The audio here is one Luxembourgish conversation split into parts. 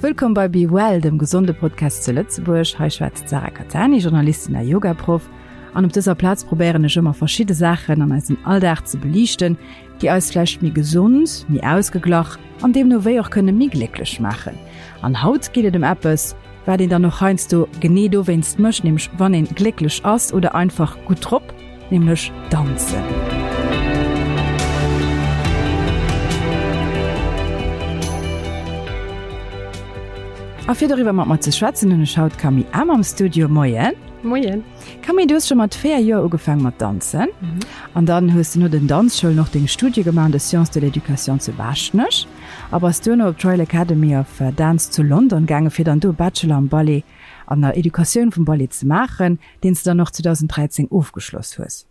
Wëllkomm bei Be Well, dem gesonde Podcast zu Lëtzebuerg. Hei schwätzt d'Sarah Cattani, Journalistin a Yogaproff. An op dëser Plaz probéieren ech ëmmer verschidde Saachen an eisem Alldag ze beliichten, déi eis vläicht méi gesond, méi ausgeglach an deemno wéi och kënne méi glécklech maachen. An haut geet et ëm eppes, wat een dann och heiansdo genee dowéinst mécht, nämlech wann een glécklech ass oder einfach gutt drop, nämlech danzen. A fir doriwwer mat mer ze schwätzen, hunn ech haut d'Camille Ahm am Studio. Moien. Moien. Camille, du hues scho mat 4 Joer ugefaang mat danzen an dann hues de no den Danzschoulen och deng Studie gemaach an de Sciences de l'éducation zu Baaschtnech a bass duerno op d'Royal Academy of Dance zu London gaange fir dann do e Bachelor am Ballet an der Educatioun vum Ballet ze maachen, deen s de dann och 2013 ofgeschloss hues.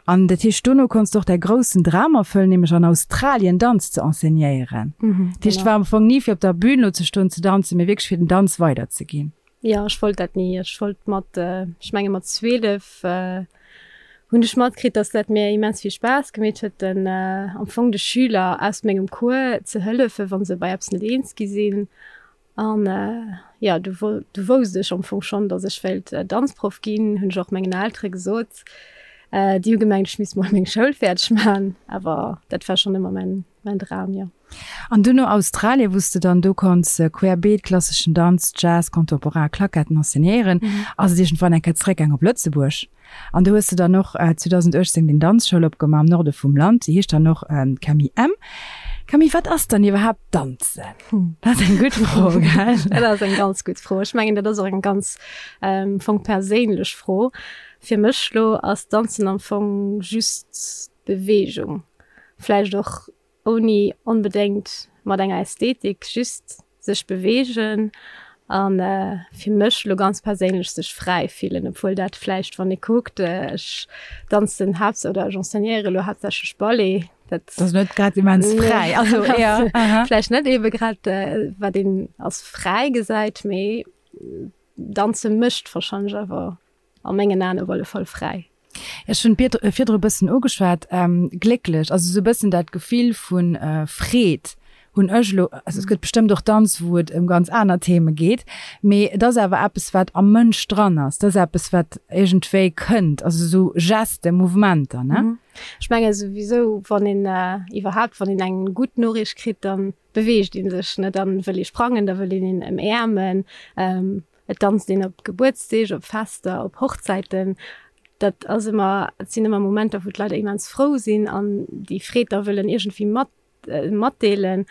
An dat heescht, dono konns de och däi groussen Dram erfëllen, nämlech an Australien Danz ze enseignéieren. Dat heescht, et war am Fong ni fir op der Bün elo ze stoen, ze danzen, mee wierklech fir den Danz weiderzeginn. Jo, ech wollt dat ni. Ech wollt mat, ech menge mat 12 hunn ech matkritt, dass dat mir immens vill Spaass gemeet huet, den am Fong de Schüler aus mengem Cours ze hëllefen, wa se bei eppes net eens gi sinn. An jo, du du wousst ech am Fong schonn, dass ech wéilt Danzproff ginn, hunn ech och mengen Eltere gesot. Déi hu gemengt, ech misst mol meng Schoul fäerdeg maachen, awer dat war schonn ëmmer mäin mäin Dram, jo. An dunn no Australien, wou s de dann do konns querbeet, klasseschen Danz, Jazz, Contemporain, Claquetten enseignéieren, ass et iergendwann eng Kéier zeréckgaang op Lëtzebuerg. An do hues de dann och 2018 deng Danzschoul opgemaach am Norde vum Land, déi heescht dann och Camille M. Camille, wat ass dann iwwerhaapt Danzen? Dat ass eng gutt Fro, gell? Dat ass eng ganz gutt Fro. Ech mengen, dat ass och eng ganz am Fong perséinlech Fro. Fir mech lo ass Danzen am Fong just Beweegung, vläicht och ouni onbedéngt mat enger Ästhetik, just sech beweegen a fir mech lo ganz perséinlech sech fräi fillen, obwuel dat vläicht, wann ee kuckt, ech danzen haapts oder ech enseignéiere lo haaptsächlech Ballet, dat ass net grad immens fräi, also ja, vläicht net ebe grad wat een als fräi gesäit, mee danze mécht warscheinlech awer A mengen Aen op alle Fall fräi. Ech hunn virdru e bëssen ugeschwat, glécklech, also esou e bëssen dat Gefill vu Freed hunn ech elo, also et gëtt bestëmmt och Danz, wou et ëm ganz aner Theme geet, mee et ass awer eppes, wat am Mënsch dran ass, et ass eppes, wat iergendwéi kënnt, also esou Gesten, Mouvementer, ne? Ech menge souwisou, wann een iwwerhaapt, wann een eng gutt Noriicht kritt, da beweegt ee sech, ne, da wëll ee sprangen, da wëll een een ëmäermen. Et danzt een op Gebuertsdeeg, op Fester, op Hochzäiten. Dat ass ëmmer, et sinn ëmmer Momenter, wou d'Leit immens frou sinn an déi Freed da wëllen iergendwéi mat, matdeelen.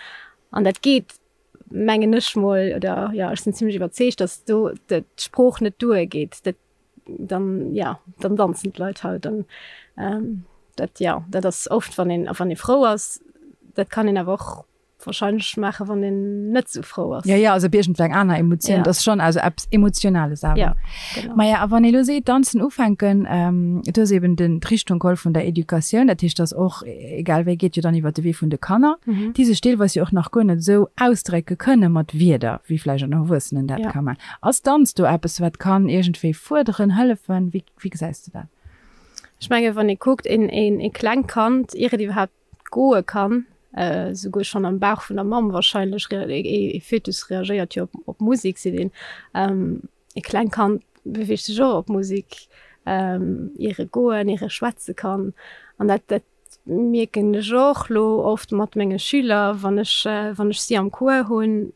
An dat geet, mengen ech mol, oder jo, ech sinn zimlech iwwerzeegt, datt do d'Sprooch net duergeet. Dat dann, ja, dann danzen d'Leit halt. An dat, jo, dat ass oft, wann een, wann ee frou ass. Dat kann een awer och Wahrscheinlech maachen, wann een net sou frou ass. Ja, ja, also op iergendwou eng aner Emotioun. Dat ass schonn also eppes Emotionales awer. Ja, genau. Maja, a wann ee lo seet, Danzen ufänken, du hues eben den, d'Richtung geholl vun der Educatioun, dat heescht, dass och, egal wéi, geet jo dann iwwert de Wee vun de Kanner, déi sech deelweis jo och nach guer net esou ausdrécke kënne mat Wierder, wéi vläicht en Erwuessenen dat ka man. Ass Danz do eppes, wat kann iergendwéi fuerderen, hëllefen? Wéi, wéi gesäis de dat? Ech menge wann ee kuckt, een, een, ee klengt Kand, ier et iwwerhaapt goe kann, souguer schonn am Bauch vun der Mamm wahrscheinlech, ee Fötus reagéiert jo op Musek, seet een. E klengt Kand beweegt sech och op Musek, ier e goen, ier e schwätze kann. An dat, dat mierken ech och lo oft mat menge Schüler, wann ech, wann ech si am Cours hunn,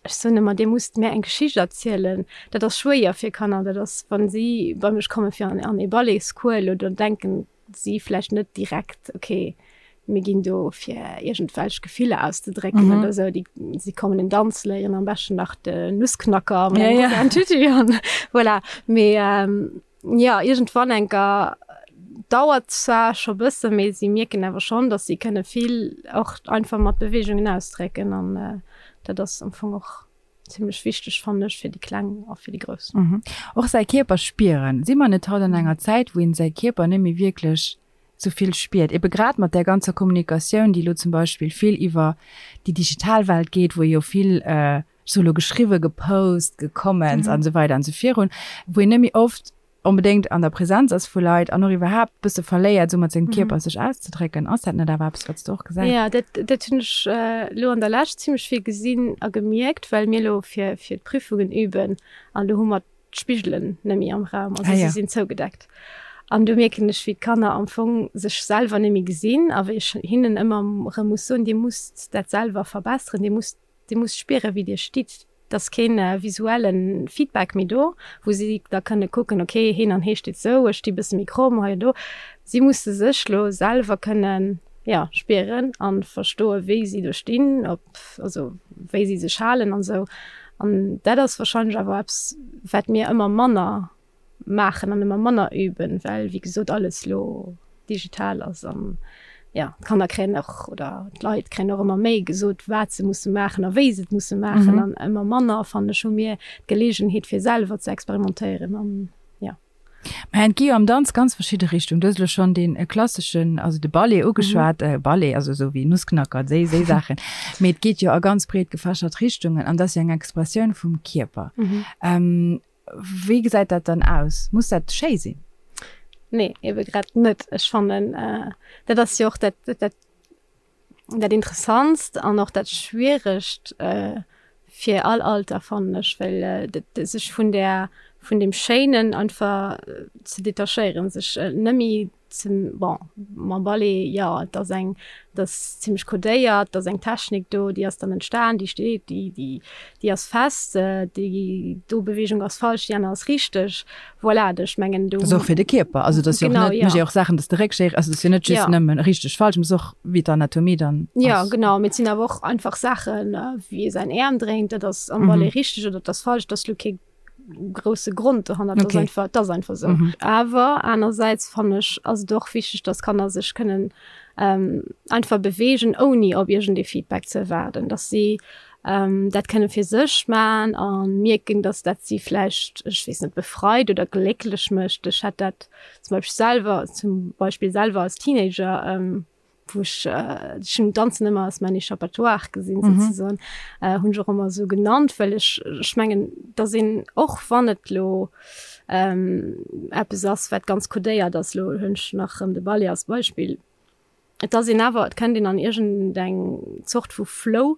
Ech soen ëmmer, Dir musst mär eng Geschicht erzielen. Dat ass schwéier fir Kanner. Dat ass, wa si bei mech komme fir an ee Balletscours elo, da denken si vläicht net direkt, okay, mir ginn do fir iergendwelch Gefiller auszedrécken mhm. oder sou. Déi, si kommen en Danz léieren, am beschten nach de Nussknacker ja, ja. Tüti an voilà. Mee ähm, ja, iergendwann enker dauert zwar scho bësse, mee si mierken awer schonn, dass si kënne vill och einfach mat Beweegungen ausdrécken an äh, dat ass am Fong och zimmlech wichteg fannen ech fir déi Kleng a fir déi Grouss. Mhm. Och säi Kierper spieren. Si mer net haut an enger Zäit, wou een säi Kierper net méi wierklech sou vill spiert? Ebe grad mat där ganzer Kommunikatioun, déi elo zum Beispill vill iwwer déi digital Welt geet, wou ee jo vill, ech soe lo geschriwwe, gepost, gecomments an esou weider an esou virun, wou een net méi oft. onbedéngt an der Präsenz ass vu Leit an och iwwerhaapt bësse verléiert, esou mat sengem Kierper sech auszedrécken. Ass dat net awer eppes, wat s de och gesäis? Jo, dat, dat hunn ech elo an der Lescht zimmlech vill gesinn a gemierkt, well mir elo fir, fir d'Prüfungen üben an do hu mer d'Spigelen net méi am Raum, also si sinn zougedeckt. An do mierken ech, wéi d'Kanner am Fong sech selwer net méi gesinn a wéi ech hinnen ëmmer erëm muss soen, Dir musst dat selwer verbesseren, Dir musst, Dir musst spieren, wéi Dir stitt. Et ass kee visuelle Feedback méi do, wou si da kënne kucken, okay, heen an hee steet esou, ech sti bësse méi kromm hei an do. Si musse sech lo selwer kënnen, jo, spieren a verstoen, wéi si do stinn, ob, also wéi si sech halen an esou. An dat ass wahrscheinlech awer eppes, wat mir ëmmer manner maachen an ëmmer manner üben, well wéi gesot alles lo digital ass an jo, d'Kanner kréien och oder d'Leit kréien och ëmmer méi gesot, wat se musse maachen a wéi se et musse maachen an ëmmer manner, fannen ech, hu mir d'Geleegenheet fir selwer ze experimentéieren an jo. Mä et gi jo am Danz ganz verschidde Richtungen. Du hues elo schonn dee klasseschen, also de Ballet ugeschwat, Ballet, also esou wéi Nussknacker, déi déi Saachen. Mee et geet jo a ganz breet gefächert Richtungen an dat ass jo eng Expressioun vum Kierper. Wéi gesäit dat dann aus? Muss dat schéi sinn? Nee, ebe grad net. Ech fannen, dat ass jo och dat, dat, dat Interessantst an och dat Schwieregt fir all Alter, fannen ech, well sech vun där, vun deem Schéinen einfach ze detachéieren, sech net méi ze, bon, mam Ballet, jo, et ass eng, et ass zimlech codéiert, et ass eng Technik do, déi ass dann entstan, déi steet, déi, déi, déi ass fest, déi do Beweegung ass falsch, déi aner ass richteg. Voilà, ech mengen do. Dat ass och fir de Kierper, also dat ass jo och net, mécht jo och Saachen, dass de Réck schéi, also dat ass jo net just nëmmen richteg, falsch, mee et ass och wéi d'Anatomie dann ass. Jo, genau, mee et sinn awer och einfach Saachen, wéi ee säin Äerm dréint, dat ass am Ballet richteg oder dat ass falsch, dat ass lo kee grousse Grond dohannert, dat ass einfach, dat ass einfach esou. Awer anersäits fannen ech, ass et och wichteg, dass Kanner sech kënnen einfach beweegen, ouni op iergendee Feedback ze erwaarden, dass si dat kënne fir sech man a mierken, dass dat si vläicht, ech weess net, befreit oder glécklech mécht. Ech hat dat zum Beispill selwer, zum Beispill selwer als Teenager, wou ech, ech hunn Danzen ëmmer als mäin Échappatoire gesinn souzesoen, hunn ech och ëmmer esou genannt, well ech, ech mengen, dass een och wann et elo eppes ass, wat ganz codéiert ass, elo hunn ech nach erëm de Ballet als Beispill, Et ass een awer, et kënnt een an iergendeng Zort vu Flow,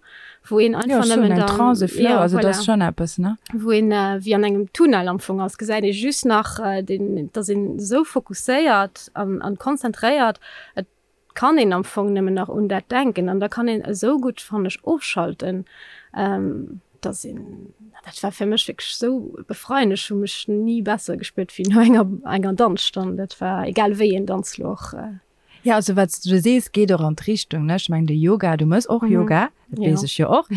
wou een einfach nëmmen dann. Jo, schonn eng Trance, e Flow, also dat ass schonn eppes, ne? Wou een wéi an engem Tunnel am Fong ass, gesäit ee just nach deen, et ass een esou fokusséiert an an konzentréiert, et kann een am Fong nëmmen nach un dat denken an da kann een esou gutt, fannen ech, ofschalten. Dass een, dat war fir mech wierklech esou befreiend, ech hu mech ni besser gespuert wéi no enger enger Danzstonn, dat war egal wéi een Danz lo och. Ja, also wat s du sees, geet och an d'Richtung, ne? Ech mengen de Yoga, du mëss och Yoga, dat weess ech jo och,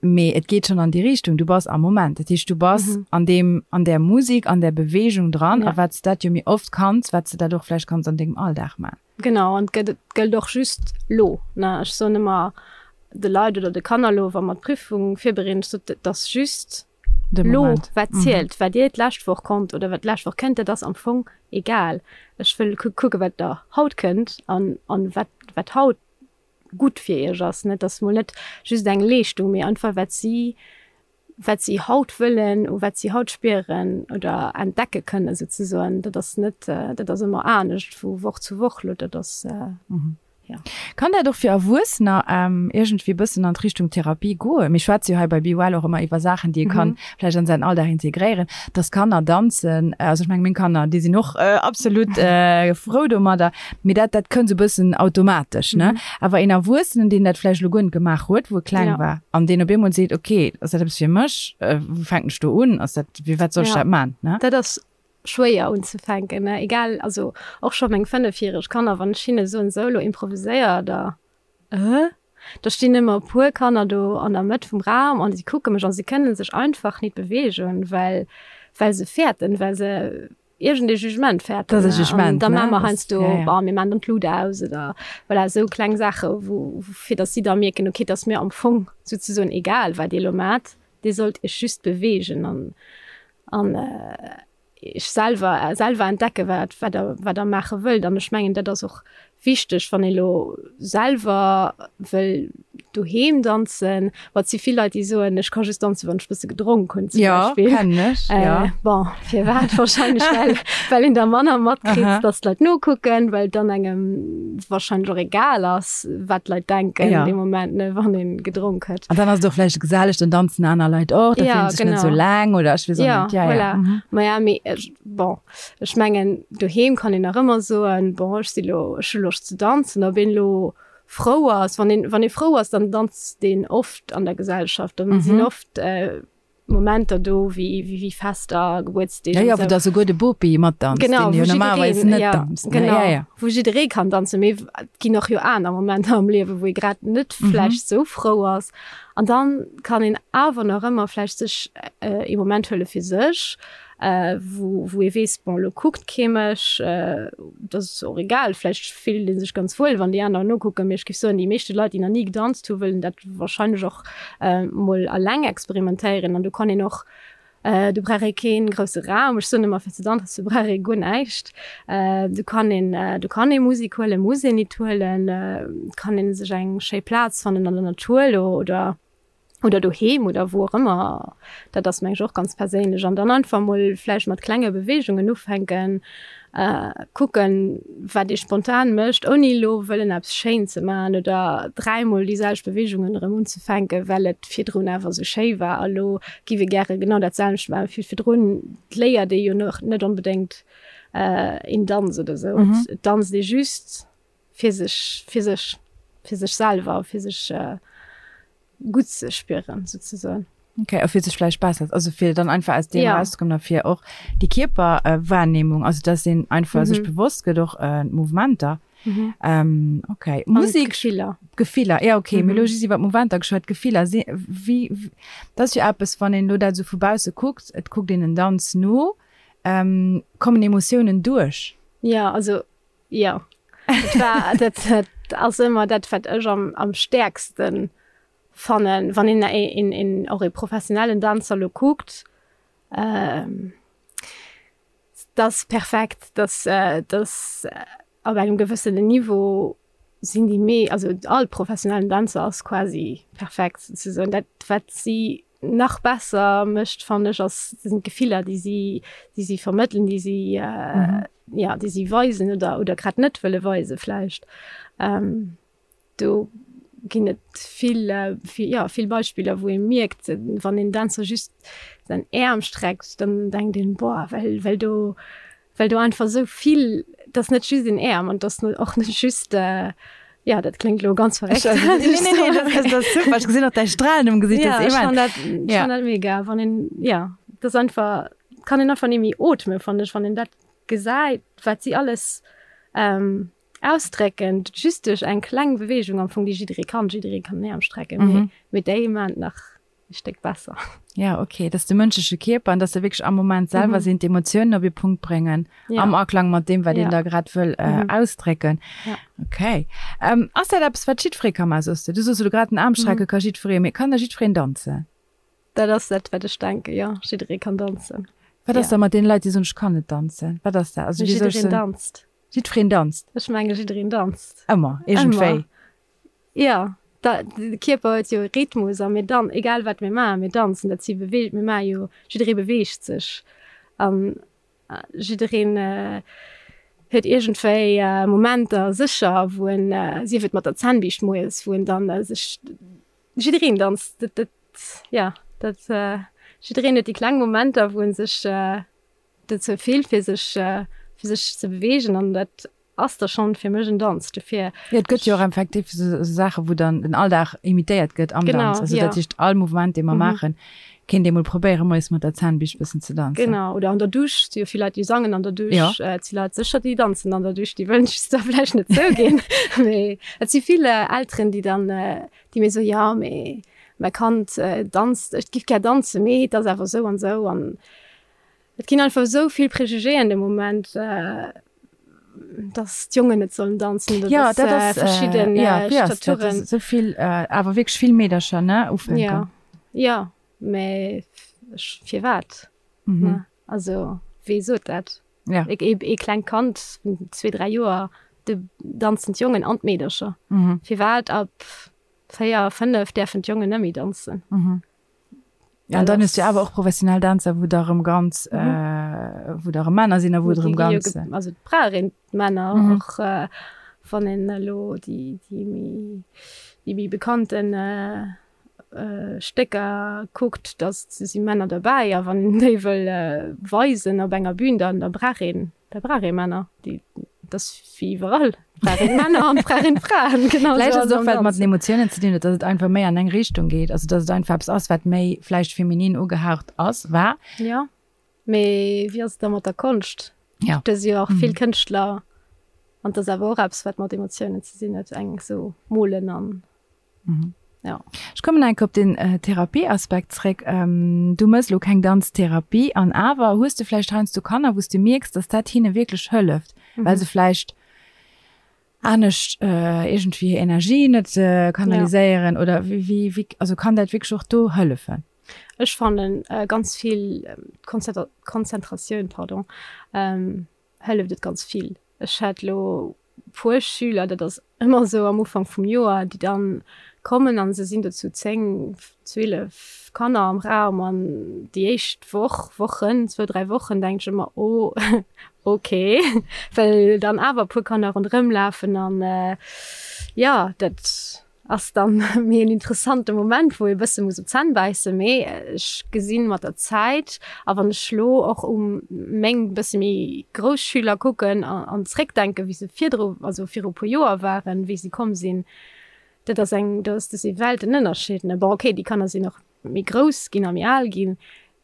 mee et geet schonn an déi Richtung, du bass am Moment, dat heescht du bass an deem, an där Musik, an där Beweegung dran a wat s dat jo méi oft kanns, wat s de dat och vläicht kanns an dengem Alldag man. Genau, an et gëtt, et gëllt och just lo, ne? Ech soen ëmmer de Leit oder de Kanner lo, wa mer d'Prüfung virbereeden, ech sot, et ass just lo, wat zielt. Wat dir d'lescht Woch konnt oder wat d'lescht Woch kënnt, dat ass am Fong egal. Ech wëll kucke wat der haut kënnt an an wat wat haut gutt fir iech ass. Net ass mol net just eng Leeschtung, mee einfach wat si wat si haut wëllen, u wat si haut spieren oder entdecke kënnen souzesoen. Dat ass net, dat ass ëmmer anescht vu Woch zu Woch lo. Dat ass. Ja. Kann dat och fir Erwuessener iergendwéi e bëssen an d'Richtung Therapie goen? Mir schwätze jo hei bei Be Well och ëmmer iwwer Saachen, déi ee kann vläicht an säin Alldag integréieren, dass Kanner danzen. Also ech menge meng Kanner, déi sinn och absolut frou domadder, mee dat dat kënnt esou e bëssen automatesch, ne? Awer een Erwuessenen, deen dat vläicht elo guer net gemaach huet, wou e kleng war, an deen op eemol seet, okay, ass dat eppes fir mech? Wou fänken ech do un? Ass dat, wéi wat soll ech dat man, ne? Dat ass schwéier unzefänken, ne, egal, also och scho meng fënnefjäreg Kanner, wann ech hinne soen, sou elo improviséier, da äh, da stinn ëmmer e puer Kanner do an der Mëtt vum Raum an si kucke mech an si kënne sech einfach nit beweegen, well well se fäerten, well se iergend ee Jugement fäerten, Dat ass e Jugement, ne? An da maache mer heiansdo, bon, mir maachen dann d'Lut aus oder voilà, esou kleng Saache wou fir datt si da mierken, okay, et ass mir am Fong souzesoen egal wat dir elo maacht, dir sollt iech just beweegen an An iech selwer, selwer entdecke wat, wat der, wat der maache wëllt. An ech mengen, dat ass och. Wichteg, wann ee lo selwer wëll doheem danzen, ma et si vill Leit, déi soen, ech ka just danzen, wann ech bësse gedronk hunn zum Beispill. Jo, kennen ech, jo. Bon, firwat? Wahrscheinlech well, well een da manner matkritt, datt d'Leit nokucken, well dann engem wahrscheinlech och egal ass, wat d'Leit denken dee Moment, ne, wann ee gedronk huet. An dann ass et och vläicht geselleg, dann danzen aner Leit och, da fillt ee sech net esou eleng oder ech weess och net. Jo, voilà. Maja, mee bon. Ech mengen, doheem kann een nach ëmmer soen, bon, ech si lo, ech hu Loscht ze danzen. Ob een elo frou ass, wann een, wann ee frou ass, dann danzt een oft an der Gesellschaft. Dann sinn oft Momenter do wéi, wéi Fester, Gebuertsdeeg an esou. Jo, jo, wou da souguer de Bopi matdanzt, deen jo normalerweis net danzt, ne? Genau, ja, ja. Wou jidderee kann danzen. Mee et ginn och jo aner Momenter am Liewen, wou ee grad net vläicht esou frou ass. An dann kann een awer nach ëmmer vläicht sech ee Moment huele fir sech. wou wou ee weess, bon elo kuckt kee mech, dat ass och egal, vläicht fillt ee sech ganz wuel, wann déi aner nokucken, mee ech géif soen, déi meeschte Leit, déi nach ni gedanzt hu wëllen dat wahrscheinlech och mol alleng experimentéieren an do kann een och, do brauch ee kee grousse Raum, ech soen ëmmer, fir ze danzen brauch ee guer näischt, do kann een, do kann ee Musek huelen, muss een nit huelen, kann ee sech eng schéi Plaz fannen an der Natur elo oder. oder doheem oder wou och ëmmer, dat ass meng ech och ganz perséinlech an dann einfach mol vläicht mat klenge Beweegungen ufänken, kucken wat ee spontan mécht, ouni elo wëllen eppes schéin ze maachen oder dräimol déi selwecht Beweegungen erëm unzefänken, well et virdrun awer esou schéi war a lo giff ee gäre genau dat selwecht maachen wéi virdrun. Et léiert ee jo nach net onbedéngt een Danz oder esou, et danzt ee just fir sech, fir sech, fir sech selwer, fir sech gutt ze spieren souzesoen. Okay, a fir sech vläicht besser, also fir dann einfach aus deem ja. rauszekommen a fir och déi Kierperwahrnehmung, also dass een einfach mhm. sech bewosst gëtt och äh, Mouvementer. Mhm. Ähm, okay. Musik Gefiller. Gefiller, ja okay. Mhm. Mir lo just iwwer Mouvementer geschwat, Gefiller si wie, wie dat ass jo eppes, wann een lo dat sou vu bausse kuckt, et kuckt een en Danz no, ähm, kommen Emotiounen duerch? Ja, also Jo, dat war, dat, dat ass ëmmer dat, wat ech am, am stäerkste fannen, wann een een, een, och ee professionellen Danzer lo kuckt, dat ass perfekt, dat, dat op engem gewëssenen Niveau sinn déi mee, also all professionellen Danzer ass quasi perfekt souzesoen. Dat wat si nach besser mécht fannen ech ass sinn d'Gefiller déi si déi si vermëttelen, déi si ja déi si weisen oder oder grad net wëlle weise vläicht. Do ginn et vill vill ja vill Beispiller wou ee mierkt wann een Dänzer just säin Äerm streckt, dann denkt een boah well well do well do einfach esou vill, et ass net just een Äerm an et ass och net just, jo dat kléngt elo ganz verréckt. Nee, nee, nee, dat ass super, ech gesinn och däi Stralen um Gesicht, dat ass immens. Ja, ech fannen dat, ech fannen dat mega, wann een, jo, et ass einfach, et kann een einfach net méi ootmen, fannen ech, wann een dat gesäit, wat si alles ausdrécken, just duerch eng kleng Beweegung am Fong, déi jidderee kann, jidderee kann en Äerm strecken, mee déi maachen et nach e Stéck besser. Ja, okay, dass de mënschleche Kierper an dass se wierklech am Moment selwer mhm. sinn, d'Emotiounen op e Punkt bréngen, ja. am Aklang mat deem, wat ja. een da grad wëll äh, mhm. ausdrécken. Ja. Okay. Ähm, ass dat eppes, wat jiddweree ka maachen, soss du? Du soss elo grad den Aarm strecke mhm. ka jiddweree, mee kann da jiddwereen danzen? Dat ass dat, wat ech denken, ja. Jiddweree kann danzen. Wat ass ja. da mat den Leit, déi soen, ech kann net danzen? Wat ass dat? Also, wéi soll ech Jiddereen danzt. Jiddwereen danzt? Ech menge jiddereen danzt. Ëmmer, iergendwéi. Jo, da, de Kierper huet jo e Rhythmus a mir dan, egal wat mir maachen, mir danzen, dat si Bewe, mir maache jo, jidderee beweegt sech an jiddereen huet iergendwéi Momenter sécher, wou en, sief et mat der Zännbiischt moies, wou en dann sech, jiddereen danzt, dat, dat, jo, dat, jiddereen huet déi kleng Momenter, wou en sech dozou fillt, fir sech, fir sech ze beweegen an dat Ass da schon fir mech en Danz dofir. Jo, et gëtt jo och effektiv esou Saache wou dann den Alldag imitéiert gëtt am Danz. Also dat heescht all Mouvement dee mer maachen, kéint ee mol probéiere moies mat der Zahnbiischt bëssen ze danzen. Genau, oder an der Dusch, et si jo vill Leit déi sangen an der Dusch, et si Leit sécher déi danzen an der Dusch, déi wëllen just da vläicht net zouginn. Mee et si vill Elteren déi dann, déi mir soen, jo mee mäi Kand danzt, ech giff gär danzen, mee et ass awer esou an esou an Et ginn einfach esou vill Préjugéen de Moment, dass d'Jongen net sollen danzen oder ja, dass dat ass, verschidden äh, ja, wéi ass dat? Staturen. Esou vill, äh, awer wierklech vill Meedercher, ne, ufänken. Ja, ja, mä ech, firwat? Mhm. Ne? Also, wee sot dat? Ja. E, e, e klengt Kand vun zwee, dräi Joer. Do danzen d'Jongen an d'Meedercher. Firwat ab 4, 5 däerfen d'Jongen net méi danzen? Ja, an dann hues du awer och professionell Dänzer, wou da rëm ganz, wou da rëm Männer sinn a wou et rëm ganz. Also et brauch een d'Männer och, wann een elo déi, déi méi, déi méi bekannten Stécker kuckt, da si Männer derbäi a wann een déi wëll weisen op enger Bühn, dann da brauch een Da brauch ee Männer, déi, dat ass wéi iwwerall, brauch een Männer an brauch een Fraen. Genau Vläicht ass et och, well et mat den Emotiounen ze dinn huet, datt et einfach méi an eng Richtung geet, also datt et einfach eppes ass, wat méi vläicht feminin ugehaucht ass, war. Jo, mee wéi ass et da mat der Konscht? Ja. Do si jo och vill Kënschtler an dat ass awer och eppes, wat mat Emotiounen ze dinn huet, eng esou molen an. Mhm. Ja. Ech kommen enk op den äh, Therapieaspekt zréck. Ähm, du mëss lo keng Danztherapie an awer hues du vläicht heiansdo Kanner, wou s du mierks, dass dat hinne wierklech hëlleft, mhm. well se vläicht anescht äh, irgendwie hir Energie net äh, kanaliséieren ja. oder wie, wie, wie, also kann dat wierklech och do hëllefen? Ech fannen äh, ganz vill ähm, Konzentratioun pardon, ähm, hëlleft et ganz vill. Ech hat lo puer Schüler, dat ass ëmmer esou am Ufank vum Joer, déi dann kommen an se sinn do zu 10, 12 Kanner am Raum an déi éischt Woch, Wochen, zwou, dräi Wochen denkt ech ëmmer, oh ok, well dann awer e puer Kanner ronderëm lafen an jo, dat Ass dann méi en interessante Moment, wou ee bësse muss op d'Zänn bäissen, mee ech gesinn mat der Zäit, a wann ech lo och u meng bësse méi grouss Schüler kucken an zréckdenken, wéi se virdru, also viru puer Joer waren, wéi si komm sinn, dat ass eng, do ass, dat si Weltenënnerscheed, ne. Bon, okay, déi Kanner sinn och méi grouss ginn a méi al ginn,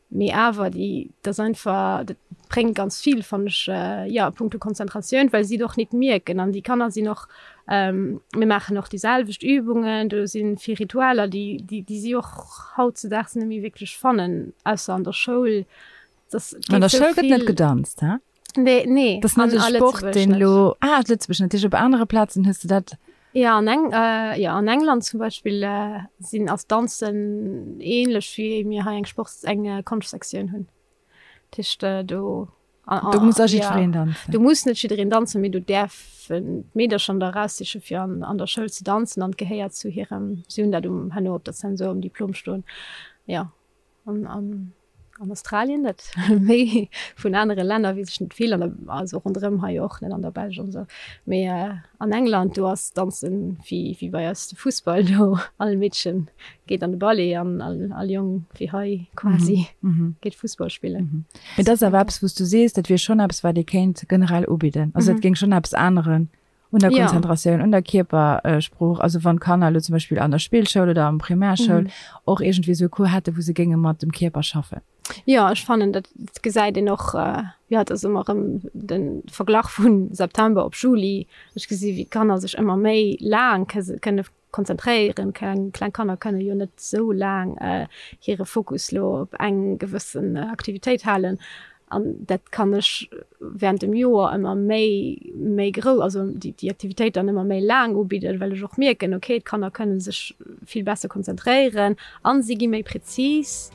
Mee awer déi, dat ass einfach, dat bréngt ganz vill, fannen ech, jo, a punkto Konzentratioun, well si et och nit mierken. An déi Kanner sinn och, mir maachen och déi selwecht Übungen, do si vill Ritualer, déi, déi, déi si och hautzedaags net méi wierklech fannen, ausser an der Schoul. Dass An der Schoul gëtt net gedanzt, he? Nee, nee. Das net e Sport, deen elo, ah, Lëtzebuerg net, op anere Plazen hues de dat. Ja, an Eng, äh, ja, an England zum Beispill äh, sinn ass Danzen ähnlech wéi mir hei eng Sport, eng äh, Konschtsektioun hunn. Dat heescht, äh, do. An, do muss a jiddwereen ja, danzen. Do muss net jiddereen danzen, mee do däerfen d'Meedercher da eraussiche fir an, an der Schoul ze danzen an gehéiert zu hirem, si hunn dat um, herno op der Zensur um Diplom stoen. Ja. An, an, an Australien net, méi vun anere Länner weess ech net vill, an der, also ronderëm hei och net, an der Belsch an esou. Mee an England, do ass Danzen wéi, wéi bei eis de Fussball, do all Meedchen geet an de Ballet an all, all Jong wéi hei quasi geet Fussball spillen. Mee dat ass awer eppes, wou s du sees, dat wier schonn eppes, wat ee kéint generell ubidden. Also dat géing schonn eppes änneren Un der Konzentratioun, un der Kierpersprooch, also wann d'Kanner elo zum Beispill an der Spillschoul oder am Primärschoul mhm. och iergendwéi esou e Cours hätte, wou se géinge mat dem Kierper schaffen. Jo, ech fannen, dat gesäit een och, äh, jo, et ass ëmmer erëm de Verglach vun September op Juli. Ech gesi wéi d'Kanner sech ëmmer méi laang kënne konzentréieren. Kleng, kleng Kanner kënne jo net esou laang hire Fokus lo op eng gewëssen Aktivitéit halen. An dat kann ech während dem Joer ëmmer méi, méi grou, also déi, déi Aktivitéit dann ëmmer méi laang ubidden, well ech och mierken, okay, d'Kanner kënne sech vill besser konzentréieren an si gi méi präzis.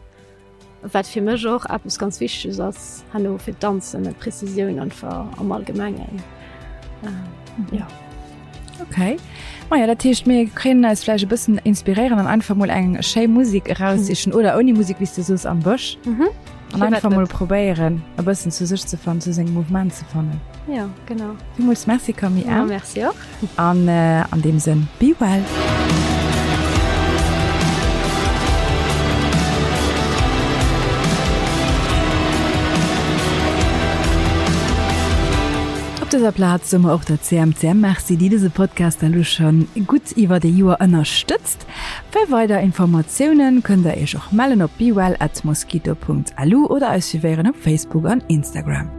Wat fir mech och eppes ganz Wichteges ass herno fir d'Danzen, d'Prezisioun einfach am Allgemengen. Jo. Okay. Maja, dat heescht mir kënnen eis vläicht e bëssen inspiréieren an einfach mol eng schéi Musek eraussichen oder ouni Musek, wéi s de soos, am Bësch. Mhm. An einfach mol probéieren, e bëssen zu sech ze fannen, zu sengem Mouvement ze fannen. Jo, genau. Villmools Merci Camille. Ja, merci och. An an deem Sënn, be well! Op dëser Plaz soe mer och der CMCM Merci, déi dëse Podcast elo scho gutt iwwert ee Joer ënnerstëtzt. Fir weider Informatiounen kënnt der iech och mellen op bewell at mosquito.lu oder eis suivéieren op Facebook an Instagram.